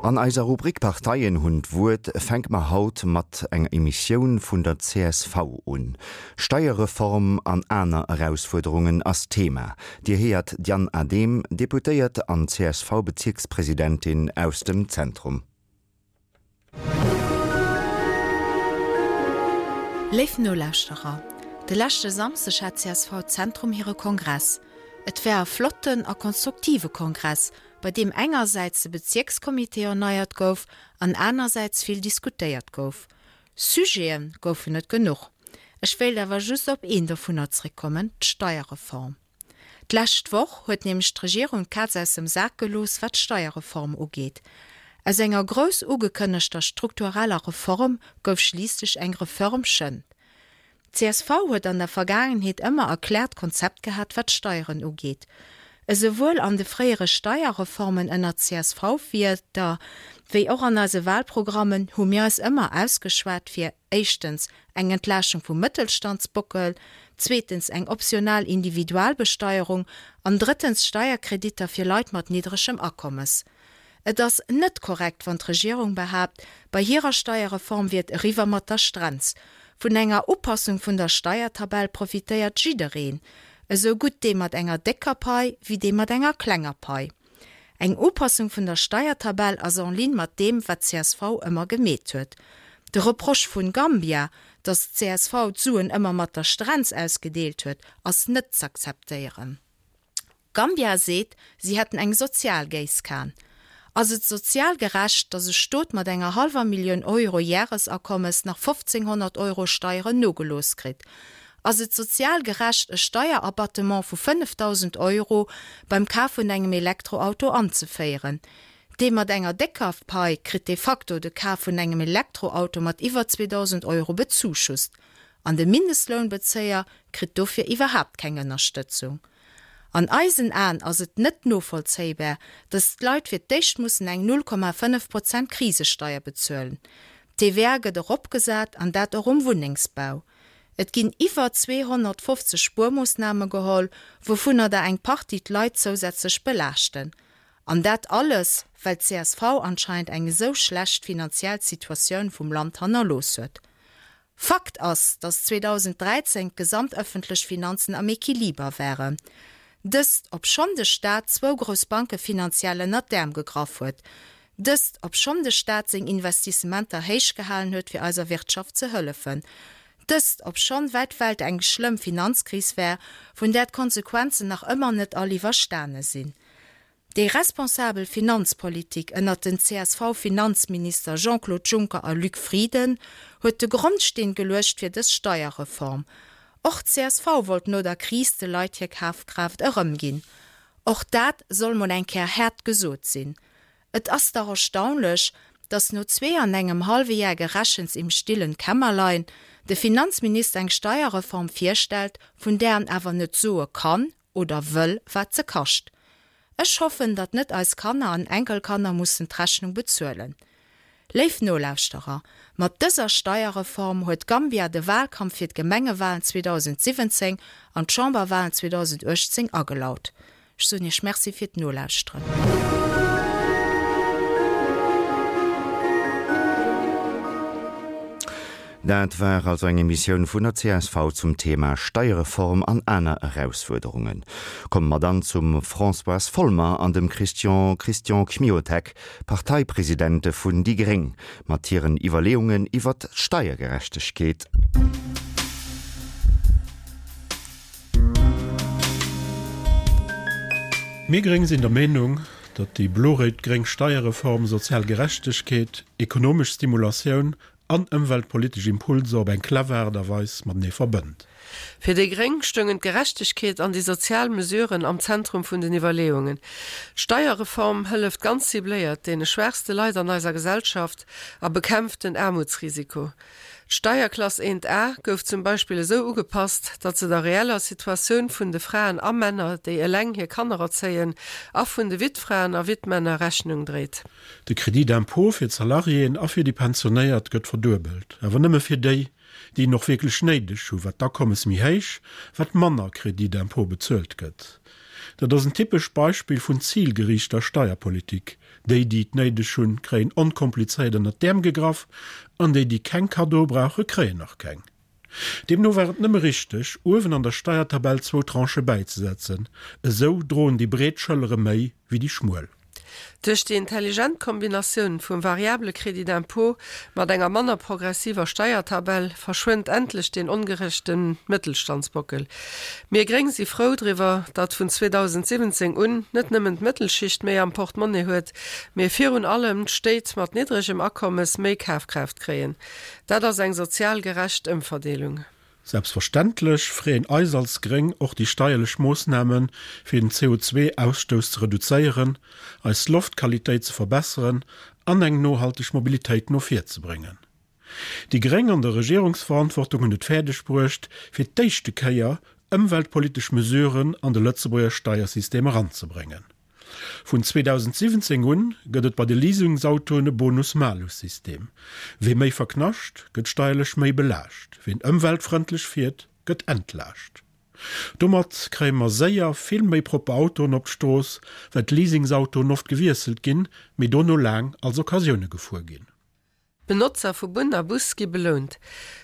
An eiser Rubrik Parteien hunn d'Wuert fänke mer haut mat enger Emissioun vun der csv un. Steierreform an aner Erausfuerderungen ass d'Thema. Dir héiert d'Diane Adehm, Deputéiert an CSV-Bezierkspresidentin aus dem Zentrum. Léif Nolauschterer, de leschte Samsdeg hat csv Zentrum hire Kongress. Et war e flotten a konstruktive Kongress, bei deem engersäits de Bezierkscomité erneiert gouf an anersäits vill diskutéiert gouf. Sujete goufen et genuch. Ech wéilt awer just op een dovunner zréckkommen, d'Steierreform. D'lescht Woch huet nämlech d'Regierung d'Kaz aus dem Sak gelooss, wat d'Steierreform ugeet. Aus enger grouss ugekënnegter struktureller Reform gouf schliisslech eng Reförmchen. D'CSV huet an der Vergaangenheet ëmmer e kläert Konzept gehat, wat d'Steieren ugeet. Esouwuel an de fréiere Steierreformen ënner CSV-Wierder wéi och an eise Wahlprogrammen hu mir eis ëmmer ausgeschwat fir éischtens eng Entlaaschtung vum Mëttelstandsbockel, zweetens eng optional Individualbesteierung an drëttens Steierkreditter fir Leit mat niddregem Akommes. Et ass net korrekt, wann d'Regierung behaapt, bei hirer Steierreform wier et eriwwer mat der Strenz. Vun enger Upassung vun der Steiertabell profitéiert jiddereen, esou gutt dee mat enger décker Pai wéi dee mat enger klenger Pai. Eng Upassung vun der Steiertabell ass en ligne mat deem, wat csv ëmmer gemeet huet. De Reproche vun Gambia, datt csv d'Suen ëmmer mat der Strenz ausgedeelt huet, ass net z'akzeptéieren. Gambia seet, si hätten eng sozial Géisskan. Ass et sozial gerecht, datt e Stot mat enger hallwer Millioun Euro Järesakommes nach 1.500 Euro Steieren nogelooss kritt? Ass et sozial gerecht, e Steierabattement vu 5.000 Euro beim Kaf vun engem Elektroauto anzeféieren? Dee mat enger décker Pai kritt de facto de Kaf vun engem Elektroauto mat iwwer 2.000 Euro bezuschusst. An de Mindestlounbezéier kritt dofir iwwerhaapt keng Ënnerstëtzung. An eisen Aen ass et net novollzéibar, datt d'Leit fir d'éischt mussen eng 0,5 Prozent Krisesteier bezuelen. D'TVA gëtt eropgesat, an dat och um Wunnengsbau. Et ginn iwwer 250 Spuermoossname geholl, wouvunner der eng Partie d'Leit zousätzlech belaaschten. An dat alles, well d'CSV anscheinend eng esou schlecht finanziell Situatioun vum Land hannerlooss huet. Fakt ass, datt 2013 d'gesamt ëffentlech Finanzen am Equiliber waren. Dëst, obschonn de Staat zwou grouss Banke finanziell ënnert d'Äerm gegraff huet. Dëst, obschonn de Staat seng Investissementer héich gehalen huet fir eiser Wirtschaft ze hëllefen. Dëst, obschonn wäit Welt eng schlëmm Finanzkris war, vun där d'Konsequenzen nach ëmmer net all iwwerstane sinn. Déi responsabel Finanzpolitik ënnert den CSV-Finanzminister Jean-Claude Juncker a Luc Frieden huet de Grondsteen geluecht fir dës Steierreform. Och csv wollt no der Kris de Leit hir Kafkraaft erëmginn. Och dat soll mol eng Kéier haart gesot sinn. Et ass dach erstaunlech, datt no zwee an engem hallwe Jar Gerechens im stillen Kämmerlein de Finanzminister eng Steierreform virstellt, vun där en awer net soe kann oder wëll, wat se kascht. Ech hoffen, datt net eis Kanner an Enkelkanner mussen d'Rechnung bezuelen. Léif Nolauschterer, mat dëser Steierreform huet Gambia de Wahlkampf fir d'Gemengewahlen 2017 an d'Chamberwahlen 2018 agelaut. Ech soen Iech Merci fir d'Nolauschteren. Dat war also eng Emissioun vun der csv zum Thema Steierreform an aner Erausfuerderungen. Komme mer dann zum Françoise Folmer an dem Christian Christian Kmiotek, Parteipresidente vun déi gréng, mat hiren Iwwerleeungen iwwert d'Steiergerechtegkeet. Mir Gréng sinn der Meenung, datt déi blo-réit-gréng Steierreform sozial Gerechtegkeet, ekonomesch Stimulatioun an ëmweltpolitesch Impulser op eng clever Aart a Weis matenee verbënnt. Fir déi gréng stoungen d'Gerechtegkeet an déi sozial Mesuren am Zentrum vun den Iwwerleeungen. D'Steierreform hëlleft ganz cibléiert deene schwaachste Leit an eiser Gesellschaft a bekämpft den Aarmutsrisiko. D'Steierklass 1 A gouf zum Beispill esou ugepasst, datt se der reeller Situatioun vun de Fraen a Männer, déi eleng hir Kanner erzéien, a vun de Wittfraen a Wittmänner Rechnung dréit. De Crédit d'impôt fir d'Salariéen a fir déi Pensionéiert gëtt verduebelt, awer nëmme fir déi, déi en och wierklech néideg hu. Wat d'Akommes méi héich, wat manner Crédit d'impôt bezuelt gëtt. Dat ass en typescht Beispill vun zilgeriichter Steierpolitik. Déi, déi et néideg hunn, kréien onkomplizéiert ënnert d'Äerm gegraff, an déi, déi keng Kaddoe brauche, kréien och keng. Deemno war et nëmme richteg, uewen an der Steiertabell zwou Tranchë bäizesetzen. Esou droen déi breet Schëllere méi wéi déi schmuel. Duerch déi intelligent Kombinatioun vum variable Crédit d'impôt mat enger manner progressiver Steiertabell verschwënnt endlech deen ongerechte Mëttelstandsbockel. Mir Gréng si frou driwwer, datt vun 2017 un net nëmmen d'Mëttelschicht méi am Portemonnaie huet, mee virun allem d'Stéit mat niddregem Akommes méi Kafkraaft kréien. Dat ass eng sozial gerecht Ëmverdeelung. Selbstverständlech freeën eis als Gréng och déi steierlech Moossnamen, fir den CO2-Ausstouss ze reduzéieren, eis Loftqualitéit ze verbesseren an eng nohalteg Mobilitéit no vir ze bréngen. Déi Gréng an der Regierungsverantwortung hunn et fäerdeg bruecht, fir d'éischte Kéier ëmweltpolitesch Mesuren an de Lëtzebuerger Steiersystem eranzebréngen. Vun 2017 un gëtt et bei de Leasingsautoen e Bonus-Malus-System. Wee méi verknascht, gëtt steierlech méi belaascht, ween ëmweltfrëndlech fiert, gëtt entlaascht. Domat kréie mer séier vill méi propper Autoen op d'Strooss, well d'Leasingsautoen oft gewiesselt ginn, mee dono laang als Occasioune gefuer ginn. D'Benotzer vu Bunn a Bus gi belount.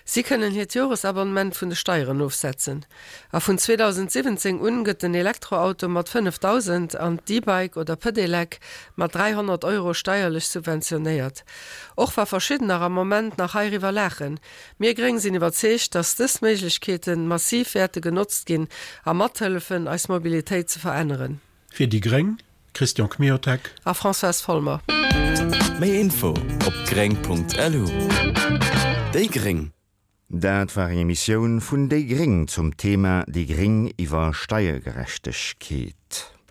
Si kënnen hiert Joresabonnement vun de Steieren ofsetzen. A vun 2017 un gëtt den Elektroauto mat 5.000 an d'E-Bike oder Pedelec mat 300 Euro steierlech subventionéiert. Och wa verschiddener am Moment nach heiriwwer laachen, mir Gréng sinn iwwerzeegt, dass dës Méiglechkeete massiv wäerte genotzt ginn a mathëllefen, eis Mobilitéit ze veränneren. Fir déi gréng, Christian Kmiotek. A Françoise Folmer. Méi Info op gréng.lu. Déi gréng. Dat war eng Emissioun vun déi gréng zum Thema Déi gréng iwwer Steiergerechtegkeet.